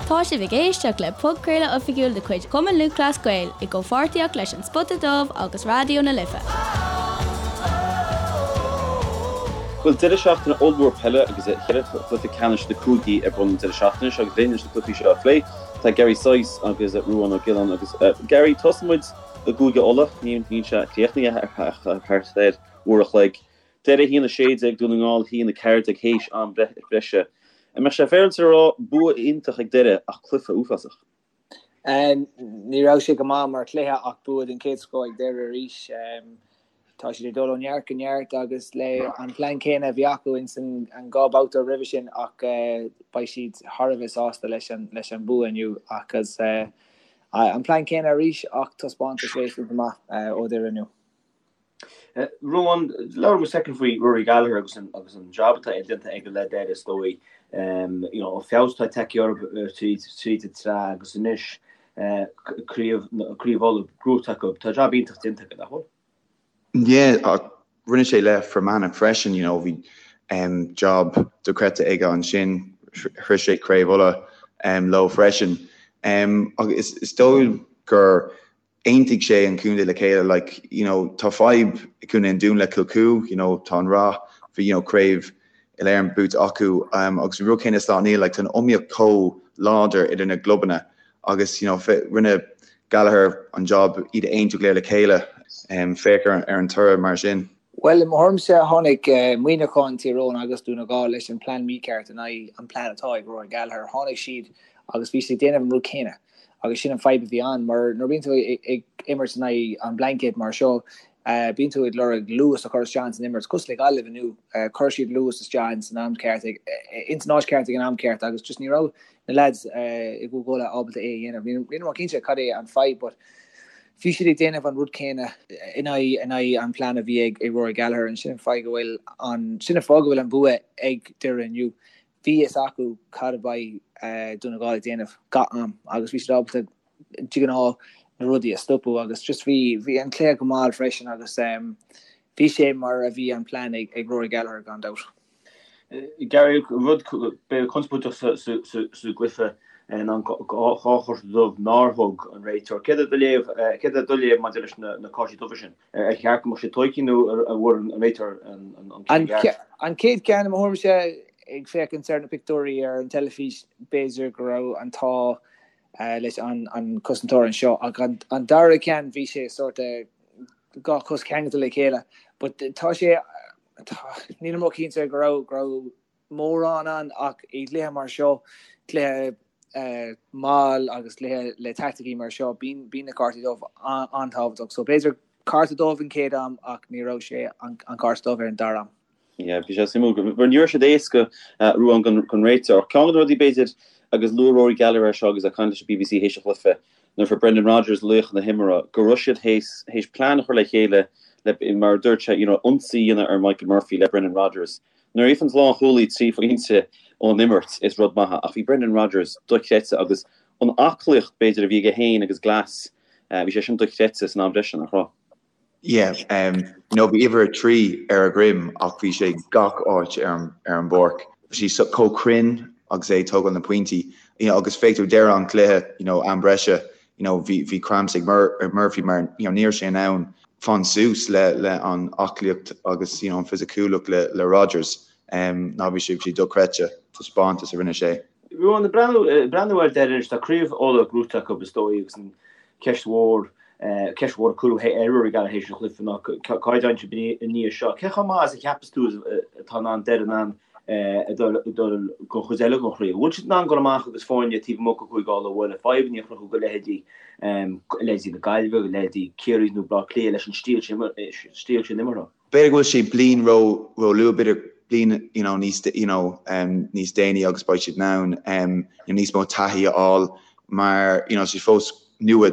Tá sibh ag éisteacht le podchraoladh oifigiúil de chuid Chumann Lúthchleas Gael i gcomhpháirtíocht leis An Spota Dubh agus Raidió na Life. Bhuel, deireadh seachtaine ollmhór peile agus cheithre chluiche ceannais na cúigí ar bun an deireadh seachtaine seo agus linn leis na cluichí seo a phlé tá Gary Sice agus Ruán Ó Giolláin agus Gary, tosóidh muid i gCúige Uladh, níl sé críochnaithe ach thart ar uair a chloig. Doire 1, 16, Dún na nGall 1, 14 théis am breise. An mbeadh sé féaráilte a rá bua iontach ag Doire ach cluiche uafásach? Ní raibh sé go maith mar chluiche ach bua den chéad scoth ag Doire arís. Tá siad ag dul ó neart go neart agus le an plean céanna a bhí acu ins an 2 babhta roimhe sin ach beidh siad thar a bheith sásta leis an leis an bua inniu agus an plean céanna arís ach taispeántas réasúnta maith ó Doire inniu. Ruán, labhair muid soicind faoi Rory Gallagher agus an agus an job atá déanta aige le Doire is dóigh. You know, an feabhas atá tagtha orthu tríd tríd an tsraith agus anois craobh craobh Uladh gnóthaithe acu. Tá job iontach déanta aige, nach bhfuil? Yeah, ach rinne sé le Fermanagh freisin, you know, bhí job dochreidte aige ansin, shroich sé Craobh Uladh leo freisin. Agus is dóigh gur aontaigh sé an contae le chéile like you know tá fadhb i gContae an Dúin le Kilcoo you know tá an rath bhí you know craobh Uile Éireann buaite acu um, agus an rud céanna Sláine Néill like tá an iomaíocht chomh láidir idir na gclubanna agus you know rinne Gallagher an job iad a aontú go léir le chéile um, féach ar, ar an toradh mar sin. Bhuel, i mo thuairimse, tháinig Muineachán, Tír Eoghain agus Dún na nGall leis an plean mícheart in aghaidh an plean atá ag Rory Gallagher. Tháinig siad agus bhí siad ag déanamh an rud céanna. Agus sin an fadhb a bhí ann, mar nuair a bíonn tú ag imirt in aghaidh an blanket mar seo, bíonn tú ag lorg luas a chur isteach ins an imirt. Cosúil le Gaillimh inniu, chuir siad luas isteach ins an am ceart, ins an áit ceart ag an am ceart agus just ní raibh na lads i gCúige Uladh ábalta é a dhéanamh. Níl mé cinnte cad é an fadhb but bhí siad ag déanamh an rud céanna in aghaidh in aghaidh an plean a bhí ag Rory Gallagher and sin an fáth go bhfuil an sin an fáth go bhfuil an bua ag Doire inniu. Bhí fhios acu cad a bheidh Dún na nGall ag déanamh gach am agus bhí siad ábalta de ghnáth na rudaí a stopadh agus just bhí bhí an cluiche go mall freisin agus bhí sé mar a bhí an plean ag ag Rory Gallagher gan dabht. Gary, rud b'fhéidir conspóideach sa gcluiche ná an dá chárta dubh nár thug an réiteoir. Céard é do léamh, céard é do léamh maidir leis na cártaí dubha sin? Ar cheart go mbeadh siad tógtha nó an bhfuair an réiteoir an ceann ceart? An chéad cheann, i mo thuairimse, ag féachaint ar na pictiúirí ar an teilifís, b'fhéidir go raibh an t-ádh leis an cosantóir anseo ach an dara ceann bhí sé sort dhá chos ceangailte le chéile. But tá sé, nílim ró-chinnte go raibh go raibh mórán ann ach i gcluiche mar seo, cluiche mall agus cluiche le taicticí mar seo, bíonn bíonn na cártaí dubh an-tábhachtach. So b'fhéidir cárta dubh an chéad am ach ní raibh sé an cárta dubh ar an dara am. Yeah, bhí sé suimiúil mar ní raibh siad éasca Ruán don réiteoir. Ceann de na rudaí b'fhéidir agus luaigh Rory Gallagher é seo agus é ag caint leis an BBC théis an chluiche, nuair a fuair Brendan Rodgers laoch na himeartha, go raibh siad théis plean a chur le chéile le, mar a dúirt sé, you know, ionsaí a dhéanamh ar Michael Murphy le Brendan Rodgers. Nuair a fhaigheann lánchúlaí 3 phointe ón imirt, is rud maith é, ach bhí Brendan Rodgers dochreidte agus an aclaíocht, b'fhéidir, a bhí aige féin agus Glass, bhí sé sin dochreidte san am breise, nach raibh? Yeah, you know, bhí uimhir 3 ar a dhroim ach bhí sé gach áit ar an ar an bpáirc. Bhí sé chomh cruinn agus é ag tógáil na pointí, you know, agus féach tú deireadh an chluiche, you know, am breise, you know, bhí bhí cramps ag Mur Murphy mar, you know, ní raibh sé in ann fan suas le le an aclaíocht agus, you know, an fisiciúlacht le le Rodgers. Um, ná bhí sé bhí sé dochreidte, taispeántas a rinne sé. Ruán, ag breathnú, breathnú ar Doire anois, tá Craobh Uladh gnóthaithe acu is dóigh agus an ceist mhór, ceist mhór a cuireadh ar Rory Gallagher théis an chluiche ná cá dtéann siad i ndiaidh seo. Cé chomh maith is a cheapas tú atá in ann Doire in ann a dul don chuid eile den chraobh? An bhfuil siad in ann dul amach agus foirne taobh amuigh de Chúige Uladh a bhualadh, fadhbanna a chruthú do leithéidí, leithéidí na Gaillimhe, leithéidí Ciarraí nó Bleá Cliath leis an stíl sin imeartha? B'fhéidir go bhfuil sé bliain ró ró luath, b'fhéidir bliain you know níos you know níos déanaí agus beidh siad in ann you know níos mó taithí a fháil mar you know sé fós nua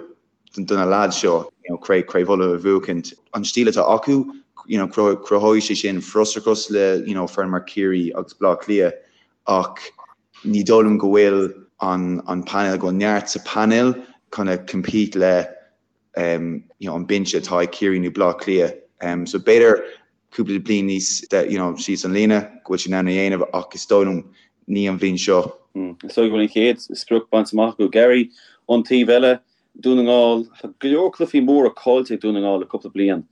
do na lads seo you know craobh craobh Uladh a bhuachaint. An stíl atá acu you know cruthóidh sé sin frustrachas le you know foireann mar Ciarraí agus Bleá Cliath ach ní dóigh liom go bhfuil an an painéal go bhfuil neart sa painéal chun a compete le you know, an binse atá ag Ciarraí nó Bleá Cliath. So b'fhéidir cúpla bliain níos you know, síos an líne go bhfuil siad in ann a dhéanamh ach is dóigh liom ní an bhliain seo. Is dóigh go bhfuil an chéad sprioc bainte amach acu. Gary, ón taobh eile, Dún na nGall, tá go leor cluichí móra caillte ag Dún na nGall le cúpla bliain.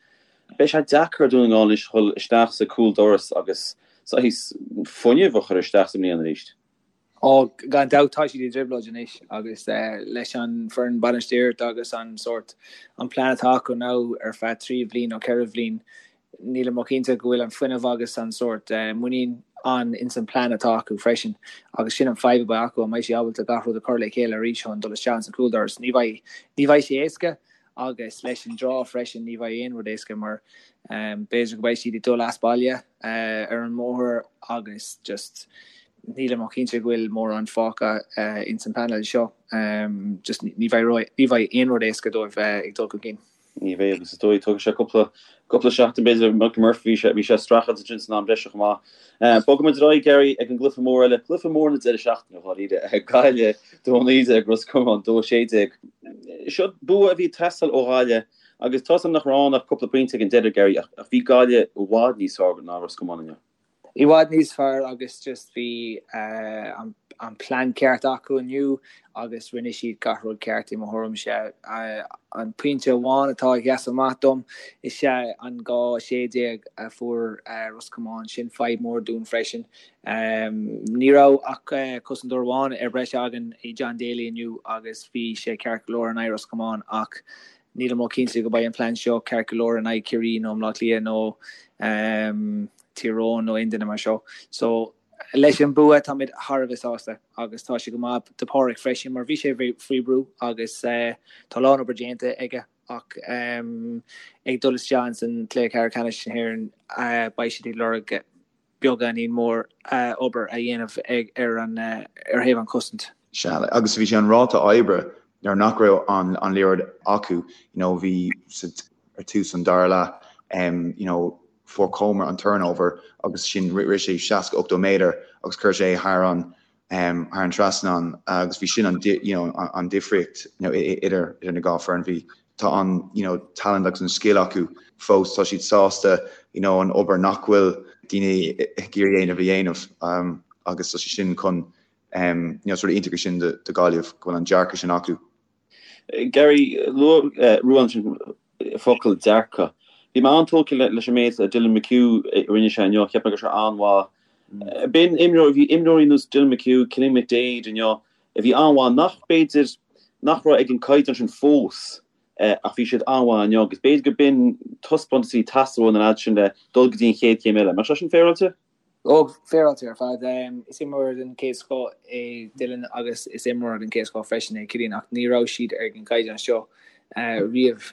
Beidh sé deacair ar Dhún na nGall anois dhul isteach sa cúl doras agus saghas fuinneamh a chur isteach sa mbliain arís. Ó, gan dabht tá siad i dtrioblóid anois agus leis an foireann bainistíochta agus an sórt, an plean atá acu now ar feadh 3 bhliain nó 4 bhliain, Nílim róchinnte go bhfuil an fuinneamh agus an sórt muinín ann ins an plean atá acu freisin agus sin an fadhb a bheidh acu, an mbeidh siad ábalta gach rud a chur le chéile arís chun dul isteach ins an cúldoras? Ní bheidh, ní bheidh sé éasca agus leis an draw freisin ní bheidh aon rud éasca mar b'fhéidir go mbeidh siad ag dul as baile ar an mbóthar agus just nílim róchinnte go bhfuil mórán fágtha ins an pleanáil seo. Just ní bheidh, ní bheidh aon rud éasca dóibh ag dul chun cinn. Ní bheidh agus is dóigh tógfaidh sé cúpla cúpla seachtain b'fhéidir Michael Murphy bhí sé bhí sé ag streachailt ansin san am breise chomh maith. Bogfaidh muid ar aghaidh Gary ag an gcluiche mór eile, cluiche mór na deireadh seachtaine dháiríre, Gaillimh 2-19 Ros Comáin 2-16. Seo bua a bhí ag teastáil ó Ghaillimh agus tá 's agam nach raibh ann ach cúpla pointe ag an deireadh Gary ach ach bhí Gaillimh i bhfad níos fearr ná Ros Comáin inniu. I bhfad níos fearr agus just bhí an plean ceart acu inniu agus rinne siad gach rud ceart i mo thuairimse. An pointe amháin atá ag sheasamh amach dom is ea an 2-16 a fuair Ros Comáin. Sin fadhb mór dúinn freisin. Ní raibh ach cosantóir amháin ar breis againn i John Daly inniu agus bhí sé ceart go leor in aghaidh Ros Comáin ach nílim róchinnte go mbeidh an plean seo ceart go leor in aghaidh Ciarraí nó Bleá Cliath nó Tír Eoghain nó aon duine mar seo. So, leis an bua táimid thar a bheith sásta agus tá sé go maith do Páraic freisin mar bhí sé faoi brú agus tá a lán obair déanta aige ach ag dul isteach ins an cluiche ceathrú ceannais na hÉireann beidh siad ag lorg beagáinín mór obair a dhéanamh ag ar an ar thaobh an chosaint. Sea, agus bhí sé an ráta oibre nuair nach raibh an an liathróid acu, you know, bhí sa ar tús an dara leath, you know, fuair Comer an turnover agus sin rith sé 60, 80 méadar agus chuir sé thar an thar an trasnán agus bhí sin an you know an difríocht you know idir idir na dhá foireann. Bhí tá an you know talent agus an scil acu fós, tá siad sásta you know an obair nach bhfuil daoine ag iarraidh a dhéanamh a dhéanamh agus tá sé sin chun you know sort of iontach é sin do do Ghaillimh go bhfuil an dearcadh sin acu. Gary, luaigh Ruán ansin focal dearcadh. Bhí mé an-tógtha leis an méid Dylan McHugh a rinne sé inniu, cheap mé go raibh sé an-mhaith. B'in imreoir, bhí imreoirí ar nós Dylan McHugh, Cillian McDaid inniu a bhí an-mhaith nach b'fhéidir nach raibh ag an caighdeán sin fós ach bhí siad an-mhaith inniu agus b'fhéidir go b'in taispeántas a bhí ag teastáil ó na leaids sin le dul go dtí an chéad chéim eile. An mbeadh sé sin féaráilte? Ó, féaráilte ar fad. Is imreoir den chéad scoth é Dylan agus is imreoir den chéad scoth freisin é Cillian ach ní raibh siad ar an gcaighdeán seo riamh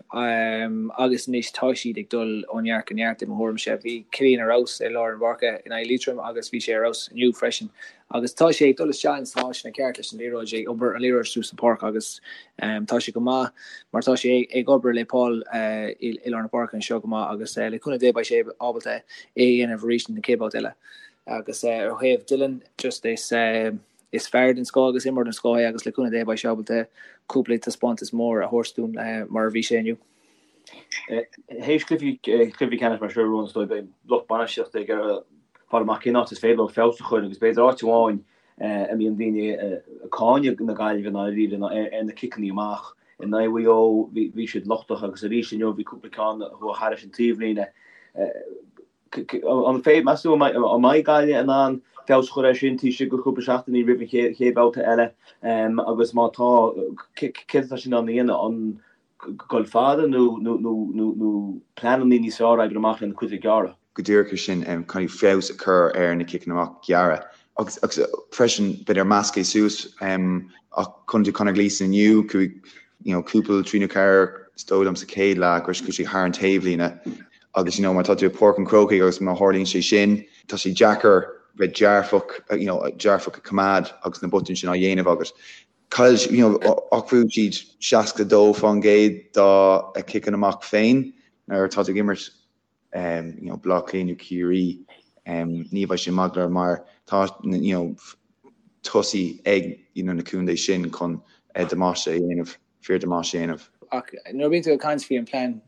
agus anois tá siad ag dul ó neart go neart i mo thuairimse. Bhí Cillian ar fheabhas i lár an pháirce in aghaidh Liatroim agus bhí sé ar fheabhas inniu freisin agus tá sé ag dul isteach ins na háiteanna ceart leis an liathróid, ag obair an liathróid suas an pháirc agus tá sé go maith mar tá sé ag obair le Paul i lár na páirce anseo go maith agus le cúnamh Dé beidh sé ábalta é a dhéanamh arís na chéad babhta eile. Agus ar thaobh Dylan just is is fear den scoth agus imreoir den scoth é agus le cúnamh Dé beidh sé ábalta cúpla taispeántas mór a thabhairt dúinn mar a bhí sé inniu. Théis cluichí cluichí ceannais mar seo Ruán is dóigh beidh lucht bainistíochta ag iarraidh fáil amach cén áit is féidir leo feabhas a chur agus b'fhéidir áit amháin a mbíonn daoine ag cáineadh na Gaillimhe i ndáiríre ná ar na ciceanna amach. In aghaidh Mhaigh Eo bhí siad lochtach agus arís inniu bhí cúpla ceann a chuaigh thairis an taobhlíne. An féidir, meas tú, an mbeidh Gaillimh in ann feabhas a chur air sin taobh istigh de chúpla seachtainí roimh an chéad bhabhta eile agus má tá, céard atá siad in ann a dhéanamh? An dul fada nó pleananna níos fearr a oibriú amach lena cuid gearra? Go díreach é sin, caithfidh feabhas a chur ar na ciceanna amach gearra agus freisin b'fhéidir meascadh suas ach chonaic tú Conor Gleeson inniu, chuaigh you know cúpla trí nó ceathair is dóigh liom sa chéad leath gur chuaigh sé thar an taobhlíne agus you know má tá tú i Páirc an Chrócaigh agus má tharlaíonn sé sin tá sé deacair bheith dearfach you know dearfach a choimeád agus na botúin sin á dhéanamh agat. Chaill you know ach bhuaigh siad 62% dá ciceanna amach féin nuair atá tú ag imirt you know Baile Átha Cliath nó Ciarraí ní bheidh sé maith go leor mar tá you know tosaí ag you know na contae sin chun damáiste a dhéanamh, fíor damáiste a dhéanamh. Ach nuair a bhíonn tú ag caint faoi an plean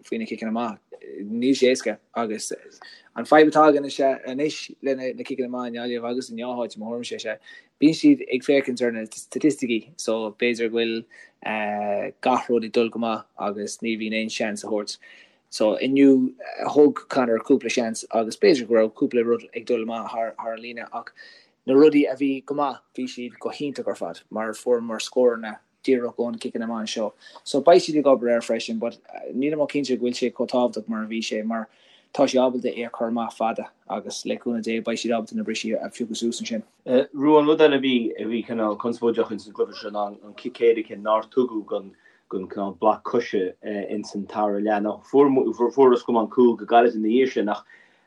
faoi na ciceanna amach. Níl sé éasca agus an fadhb atá againn is ea anois le na ciceanna amach i nGaillimh agus i ngach áit i mo thuairimse is ea bíonn siad ag féachaint ar na staitisticí so b'fhéidir go bhfuil gach rud ag dul go maith agus ní bhíonn aon seans a thabhairt. So inniu thug Conor cúpla seans agus b'fhéidir go raibh cúpla rud ag dul amach thar an líne ach na rudaí a bhí go maith bhí siad go hiontach ar fad mar fuaireamar scóranna díreach ó na ciceanna amach anseo. So beidh siad ag obair air freisin but nílim cinnte go bhfuil sé chomh tábhachtach mar a bhí sé mar tá sé ábalta é a chur amach fada agus le cúnamh Dé beidh siad ábalta na brisí a phiocadh suas ansin. Ruán, rud eile a bhí a bhí cineál conspóideach ins an gcluiche seo ná an cic éirice nár tugadh don don cineál bloc coise ins an tara leath. Now fuair fuair Ros Comáin cúl go gairid ina dhiaidh sin ach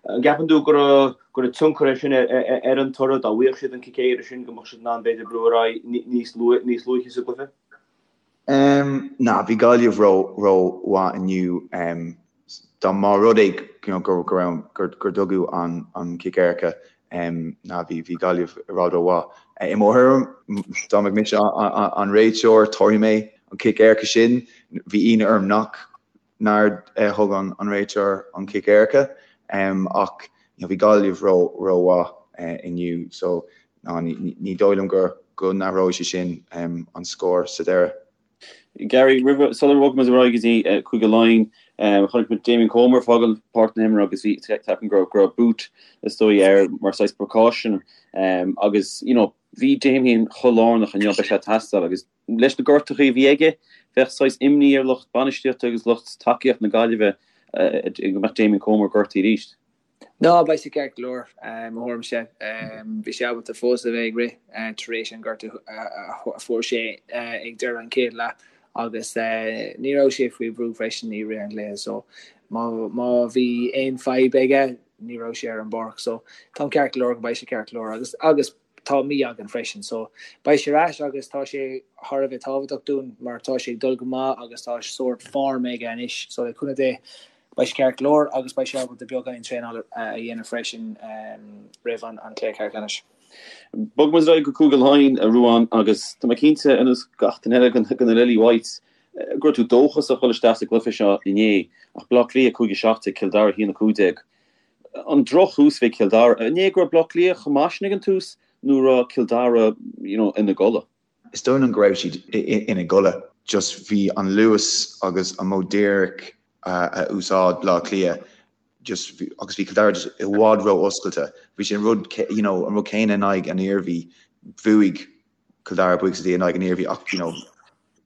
an gceapann tú go raibh go raibh tionchar é sin ar an toradh dá bhfaigheadh siad an cic éirice sin go mbeadh siad in ann b'fhéidir brú ar aghaidh níos níos luaithe sa gcluiche? Ná, bhí Gaillimh ró ró mhaith inniu. Dá mba rud é you know go go raibh gur gur tugadh an an cic éirice ná bhí bhí Gaillimh i bhfad ró mhaith. I mo thuairim, dá mbeadh mise an réiteoir, tabharfaidh mé an cic éirice sin. Bhí ionadh orm nach nár thug an réiteoir an cic éirice ach bhí Gaillimh ró ró mhaith inniu so ná ní dóigh liom go go n-athróidh sé sin an scór sa deireadh. Gary, roimh sular bhog muid ar aghaidh go dtí Cúige Laighean, chonaic muid Damien Comer ag fágáil páirc na himeartha agus bhí ceapaim go raibh boot is dóigh air mar saghas precaution agus you know bhí Damien chomh lárnach inniu beidh sé ag teastáil agus leis na gortuithe a bhí aige bheadh saghas imní ar lucht bainistíochta agus lucht tacaíochta na Gaillimhe go mbeadh Damien Comer gortaithe arís. Ná, beidh sé ceart go leor, mo thuairimse. Bhí sé ábalta fós a bheith ag rith tar éis an gortú a fuair sé ag deireadh an chéad leath agus ní raibh sé faoi bhrú freisin i rith an chluiche so má bhí aon fadhb aige ní raibh sé ar an bpáirc so táim ceart go leor go mbeidh sé ceart go leor agus agus tá mí againn freisin so beidh sé ar ais agus tá sé thar a bheith tábhachtach dúinn mar tá sé ag dul go maith agus tá sórt form aige anois so le cúnamh Dé beidh sé ceart go leor agus beidh sé ábalta beagáinín traenála a dhéanamh freisin roimh an cluiche ceannais. Bogfaidh muid ar aghaidh go Cúige Laighean, a Ruán, agus tá mé cinnte, ar nós gach duine eile de na Lily Whites, go raibh tú dóchasach dul isteach sa gcluiche seo inné, ach Bleá Cliath 5-17, Cill Dara 1-15. An drochthús a bhí ag Cill Dara. An é go raibh Bleá Cliath chomh maith sin ag an tús nó raibh Cill Dara you know ina gcodladh? Is dóigh liom go raibh siad ina gcodladh. Just bhí an luas agus an modh díreach a úsáid Bleá Cliath just agus bhí Cill Dara just i bhfad ró-oscailte. Bhí sé an rud you know an rud céanna in aghaidh an Iarmhí. Bhuaigh Cill Dara buíochas le Dia in aghaidh an Iarmhí ach you know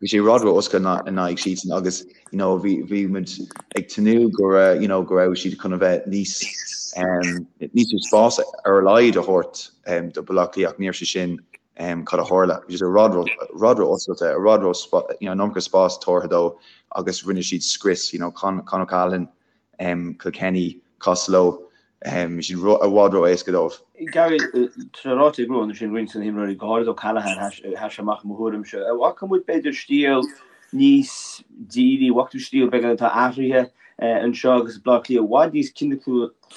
bhí sé i bhfad ró-oscailte in aghaidh siadsan agus you know bhí bhí muid ag tnúth go raibh you know go raibh siad chun a bheith níos um, níos mó spás ar a laghad a thabhairt um, do Baile Átha Cliath ach ní raibh sé sin um, cad a tharla. Bhí sé i bhfad ró i bhfad ró-oscailte, i bhfad ró you know, an iomarca spás tabhartha dó agus rinne siad scrios you know, Con, Con O'Callaghan Kilkenny, Costello, bhí siad i bhfad ró-éasca dóibh. Gary, tá sé ráite ag Ruán ansin roinnt de na himreoirí, go háirid O'Callaghan, sheas sé amach i mo thuairimse. An bhfaca muid b'fhéidir stíl níos dírí, an bhfaca tú stíl beagán atá athraithe anseo agus Baile Átha Cliath i bhfad níos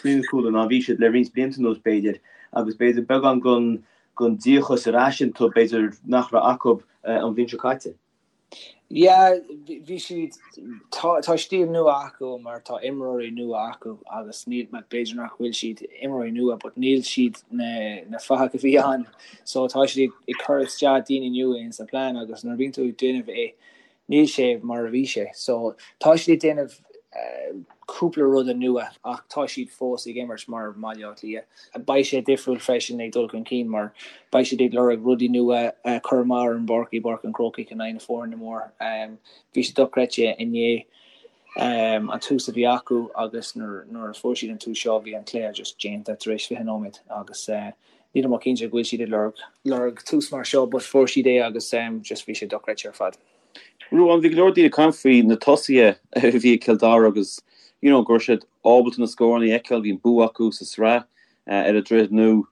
ciniciúla ná bhí siad le roinnt blianta anuas b'fhéidir agus b'fhéidir beagán den díocas ar ais iontu b'fhéidir nach raibh acu an bhliain seo caite. Yeah, bhí siad, tá, tá stíl nua acu mar tá imreoirí nua acu agus níl, b'fhéidir nach bhfuil siad imreoirí nua but níl siad na, na fathaigh a bhí ann so tá siad ag cur isteach daoine nua in sa plean agus nuair a bhíonn tú ag déanamh é níl sé mar a bhí sé so tá siad ag déanamh cúpla ruda nua ach tá siad fós ag imirt mar Bhaile Átha Cliath. Beidh sé difriúil freisin ag dul chun cinn mar beidh siad ag lorg rudaí nua a chur amach ar an bpáirc i bPáirc an Chrócaigh in aghaidh na foirne mór. Bhí sé dochreidte inné an tús a bhí acu agus nuair a fuair siad an tús seo bhí an cluiche just déanta tar éis 20 nóiméad agus nílim cinnte go bhfuil siad ag lorg lorg tús mar seo but fuair siad é agus just bhí sé dochreidte ar fad. Ruán, bhí go leor daoine ag caint faoi na tosaithe a bhí ag Cill Dara agus you know go raibh siad ábalta na scóranna a fheiceáil, bhí an bua acu sa sraith ar an Droichead Nua.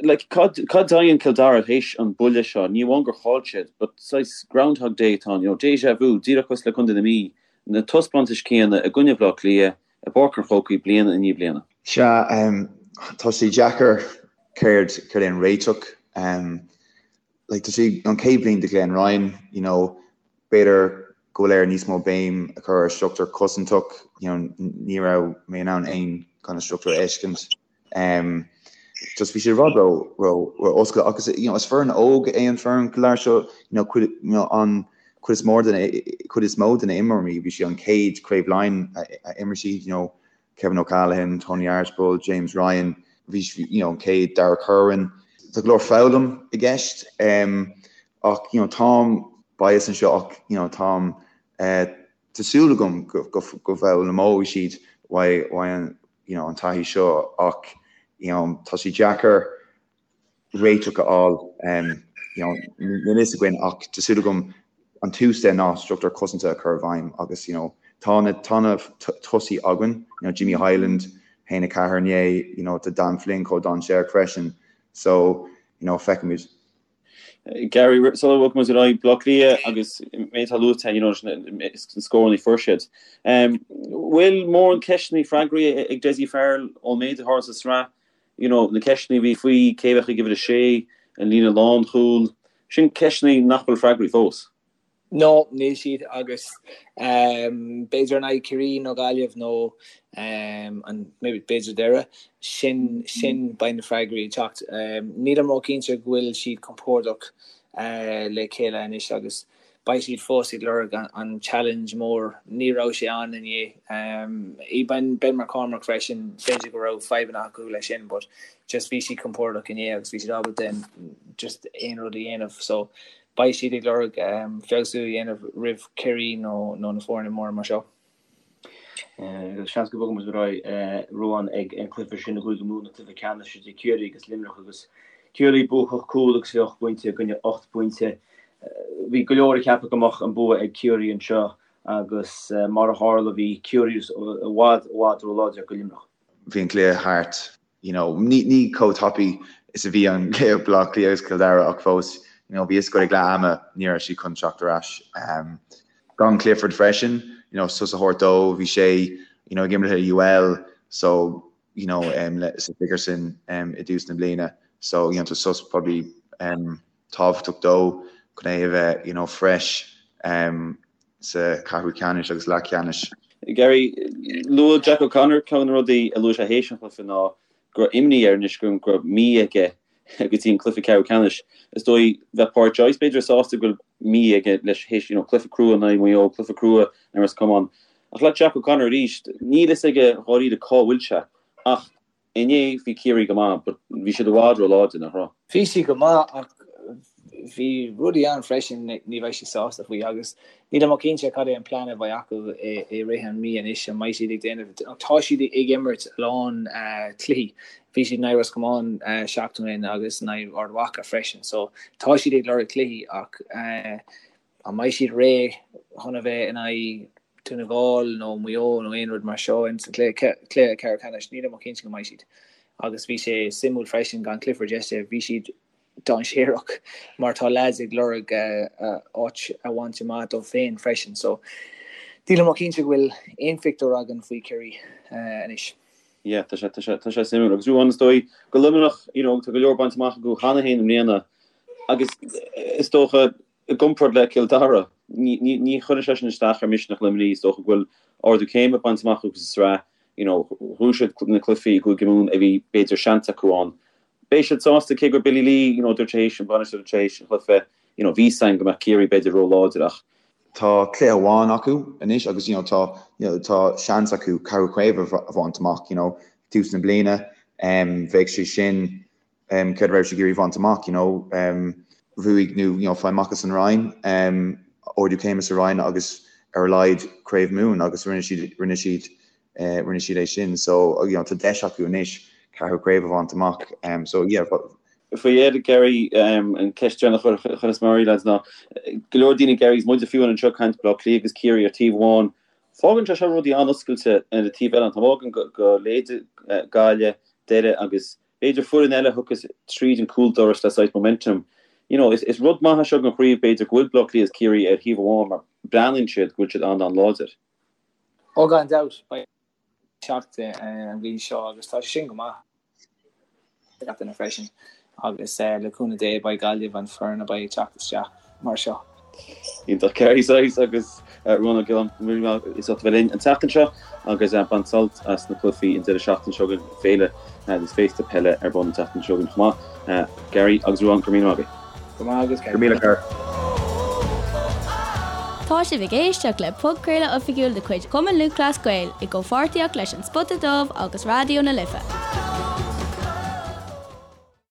Like cad cad a dhéanann Cill Dara théis an buille seo? Ní amháin gur chaill siad but saghas Groundhog Day atá ann, you know, déjà vu, díreach cosúil le Contae na Mí, na taispeántais céanna i gcoinne Bhaile Átha Cliath i bPáirc an Chrócaigh bliain i ndiaidh bliana. Sea, tá sé deacair céard céard é an réiteach. Like tá sé an chéad bhliain do Glenn Ryan, you know, b'fhéidir. go bhfuil air níos mó béim a chur ar struchtúr cosantach, you know, ní raibh mé in ann aon kind of struchtúr a fheiscint. Um, just bhí sé rud ró ró ró oscailte agus you know, is foireann óg é an foireann go léir seo you know, cuid, you know, an cuid is mór den cuid is mó de na imreoirí bhí sé an chéad Craobh Laighean a, a imir siad you know, Kevin O'Callaghan, Tony Archibald, James Ryan, bhí you know, an chéad Darragh Kirwan. Tá go leor foghlaim i gceist um, ach you know, táim bias anseo ach you know, táim uh, tá súil agam go, go, go bhfoghlaimeoidh siad uaidh, uaidh an, you know, an taithí seo ach you know, tá sé deacair réiteach a fháil um, you know, níl fhios againn ach tá súil agam an tús de ná struchtúr cosanta a chur i bhfeidhm agus you know, tá na, tá na tosaí againn, you know, Jimmy Hyland, 1-4 inné, you know, tá Dan Flynn chomh dainséarach freisin so you know, feicfimid. Gary, sula bhfágfaidh muid ar aghaidh, Bleá Cliath agus méid atá luaite, you know, na scóranna a fuair siad. Bhfuil mórán ceisteanna freagraí ag Dessie Farrell ón méid a tharla sa sraith, you know, na ceisteanna a bhí faoi cé a bheadh ag uimhir a sé, an líne lánchúil, sin ceisteanna nach bhfuil freagraí fós. No, níl siad agus b'fhéidir in aghaidh Ciarraí nó Gaillimh nó an maybe b'fhéidir Doire, sin sin beidh na freagraí ag teacht. Nílim ró-chinnte go bhfuil siad compordach le chéile anois agus beidh siad fós ag lorg an challenge mór. Ní raibh sé ann inné. Ben Ben McCormack freisin, b'fhéidir go raibh fadhbanna acu leis sin but just bhí siad compordach inné agus bhí siad ábalta just aon rud a dhéanamh so Beidh siad ag lorg feabhsú a dhéanamh roimh Chiarraí nó na foirne móra mar seo. Seans go mbogfaidh muid ar aghaidh Ruán ag an cluiche sin i gCúige Mumhan, an cluiche ceannais idir Ciarraí agus Luimneach agus Ciarraí buacach cúl agus 28 pointe i gcoinne 8 bpointe. Bhí go leor ag ceapadh go mbeadh an bua ag Ciarraí anseo agus mar a tharla bhí Ciarraí i bhfad i bhfad róláidir do Luimneach. Bhí an cluiche thart you know, ní, ní chomh tapaidh is a bhí an cluiche Baile Átha Cliath agus Cill Dara ach fós, you know, bhí fhios agat ag leath ama ní raibh siad chun teacht ar ais. Um, gan Clifford freisin, you know, sos a thabhairt dó, bhí sé, you know, ag imirt le UL, so, you know, um, le, sa Sigerson um, i dtús na bliana, so, you know, tá sos probably um, tábhachtach dó chun é a bheith, you know, fresh um, sa ceathrú ceannais agus leath ceannais. Gary, luaigh Jack O'Connor ceann de na rudaí a luaigh sé théis an chluiche ná go raibh imní air anois go raibh mí aige go dtí an cluiche ceathrú ceannais. Is dóigh bheadh Pádraic Joyce b'fhéidir sásta go bhfuil mí aige leis théis you know, cluiche crua in aghaidh Mhaigh Eo, cluiche crua in aghaidh Ros Comáin. Ach le Jack O'Connor arís, níl fhios aige dháiríre cá bhfuil sé ach Inné bhí Ciarraí go maith but bhí siad i bhfad ró-láidir, nach raibh? Bhí siad go maith ach bhí rudaí ann freisin ní bheidh siad sásta faoi agus nílim cinnte cad é an plean a bheidh acu i rith an mí anois, an mbeidh siad ag déanamh, tá siad ag imirt a lán cluichí, bhí siad in aghaidh Ros Comáin seachtain ó shin agus in aghaidh Ard Mhacha freisin so tá siad ag lorg cluichí ach An mbeidh siad réidh chun a bheith in aghaidh Dún na nGall nó Maigh Eo nó aon rud mar seo in sa chluiche ceathrú ceannais? Nílim cinnte go mbeidh siad. Agus bhí sé suimiúil freisin gan Clifford yesterday, bhí siad dainséarach mar tá leaids ag lorg áit a bhaint amach dóibh féin freisin. So nílim cinnte go bhfuil aon phictiúr againn faoi Chiarraí anois. Yeah, tá sé, tá sé, tá sé suimiúil. Agus Ruán, is dóigh go Luimneach, you know, tá go leor bainte amach acu cheana féin i mbliana agus is dócha I gcomparáid le Cill Dara, ní chuireann sé sin isteach ar mhisneach Luimnigh. Is dócha go bhfuil ardú céime bainte amach acu sa tsraith. You know, bhuaigh siad na cluichí i gCúige Mumhan a bhí b'fhéidir seans acu ann. Beidh siad sásta, cé gur Billy Lee, you know, dúirt sé théis, an bainisteoir dúirt sé théis an chluiche, you know, bhí 'fhios againn go mbeadh Ciarraí b'fhéidir ró-láidir ach. Tá cluiche amháin acu anois agus you know, tá, you know, tá seans acu ceathrú craobh a bhaint amach, you know, tús na bliana. Bheadh sé sin céard a raibh siad ag iarraidh bhaint amach, you know, bhuaigh nó, you know, fáil amach as an Roinn, ardú céime sa Roinn agus ar a laghad Craobh Mumhan agus rinne siad, rinne siad, rinne siad é sin. So, you know, tá deis acu anois ceathrú craobh a bhaint amach. So, yeah. Faoi dheireadh, Gary, an ceist deireanach a chuirfeas mé oraibh, lads, ná go leor daoine, Gary, is muide fiú anseo ag caint Baile Átha Cliath agus Ciarraí ar taobh amháin, fágann sé seo rudaí an-oscailte ar an taobh eile, an t-am fágann go leithéide Gaillimh, Doire agus B'fhéidir foireann eile a thiocfas tríd an cúldoras le saghas momentum. You know, is rud maith é seo don chraobh b'fhéidir go bhfuil Baile Átha Cliath is Ciarraí ar thaobh amháin mar breathnaíonn siad go bhfuil siad an-an-láidir. Ó gan dabht, beidh teacht an bhliain seo agus tá sé sin go maith do gach duine freisin agus le cúnamh Dé beidh Gaillimh an foireann a beidh ag teacht isteach mar seo. Iontach Gary Sice agus Ruán Ó Giolláin, go raibh míle maith as ucht a bheith linn an tseachtain seo agus bain sult as na cluichí an deireadh seachtaine seo chugainn, féile agus féasta peile ar bun an tseachtain seo chugainn chomh maith. Gary agus Ruán, go raibh míle maith agaibh. Go maith agat Go míle Gary. Tá sibh ag éisteacht le podchraoladh oifigiúil de chuid Chumann Lúthchleas Gael i gcomhpháirtíocht leis An Spota Dubh agus Raidió na Life.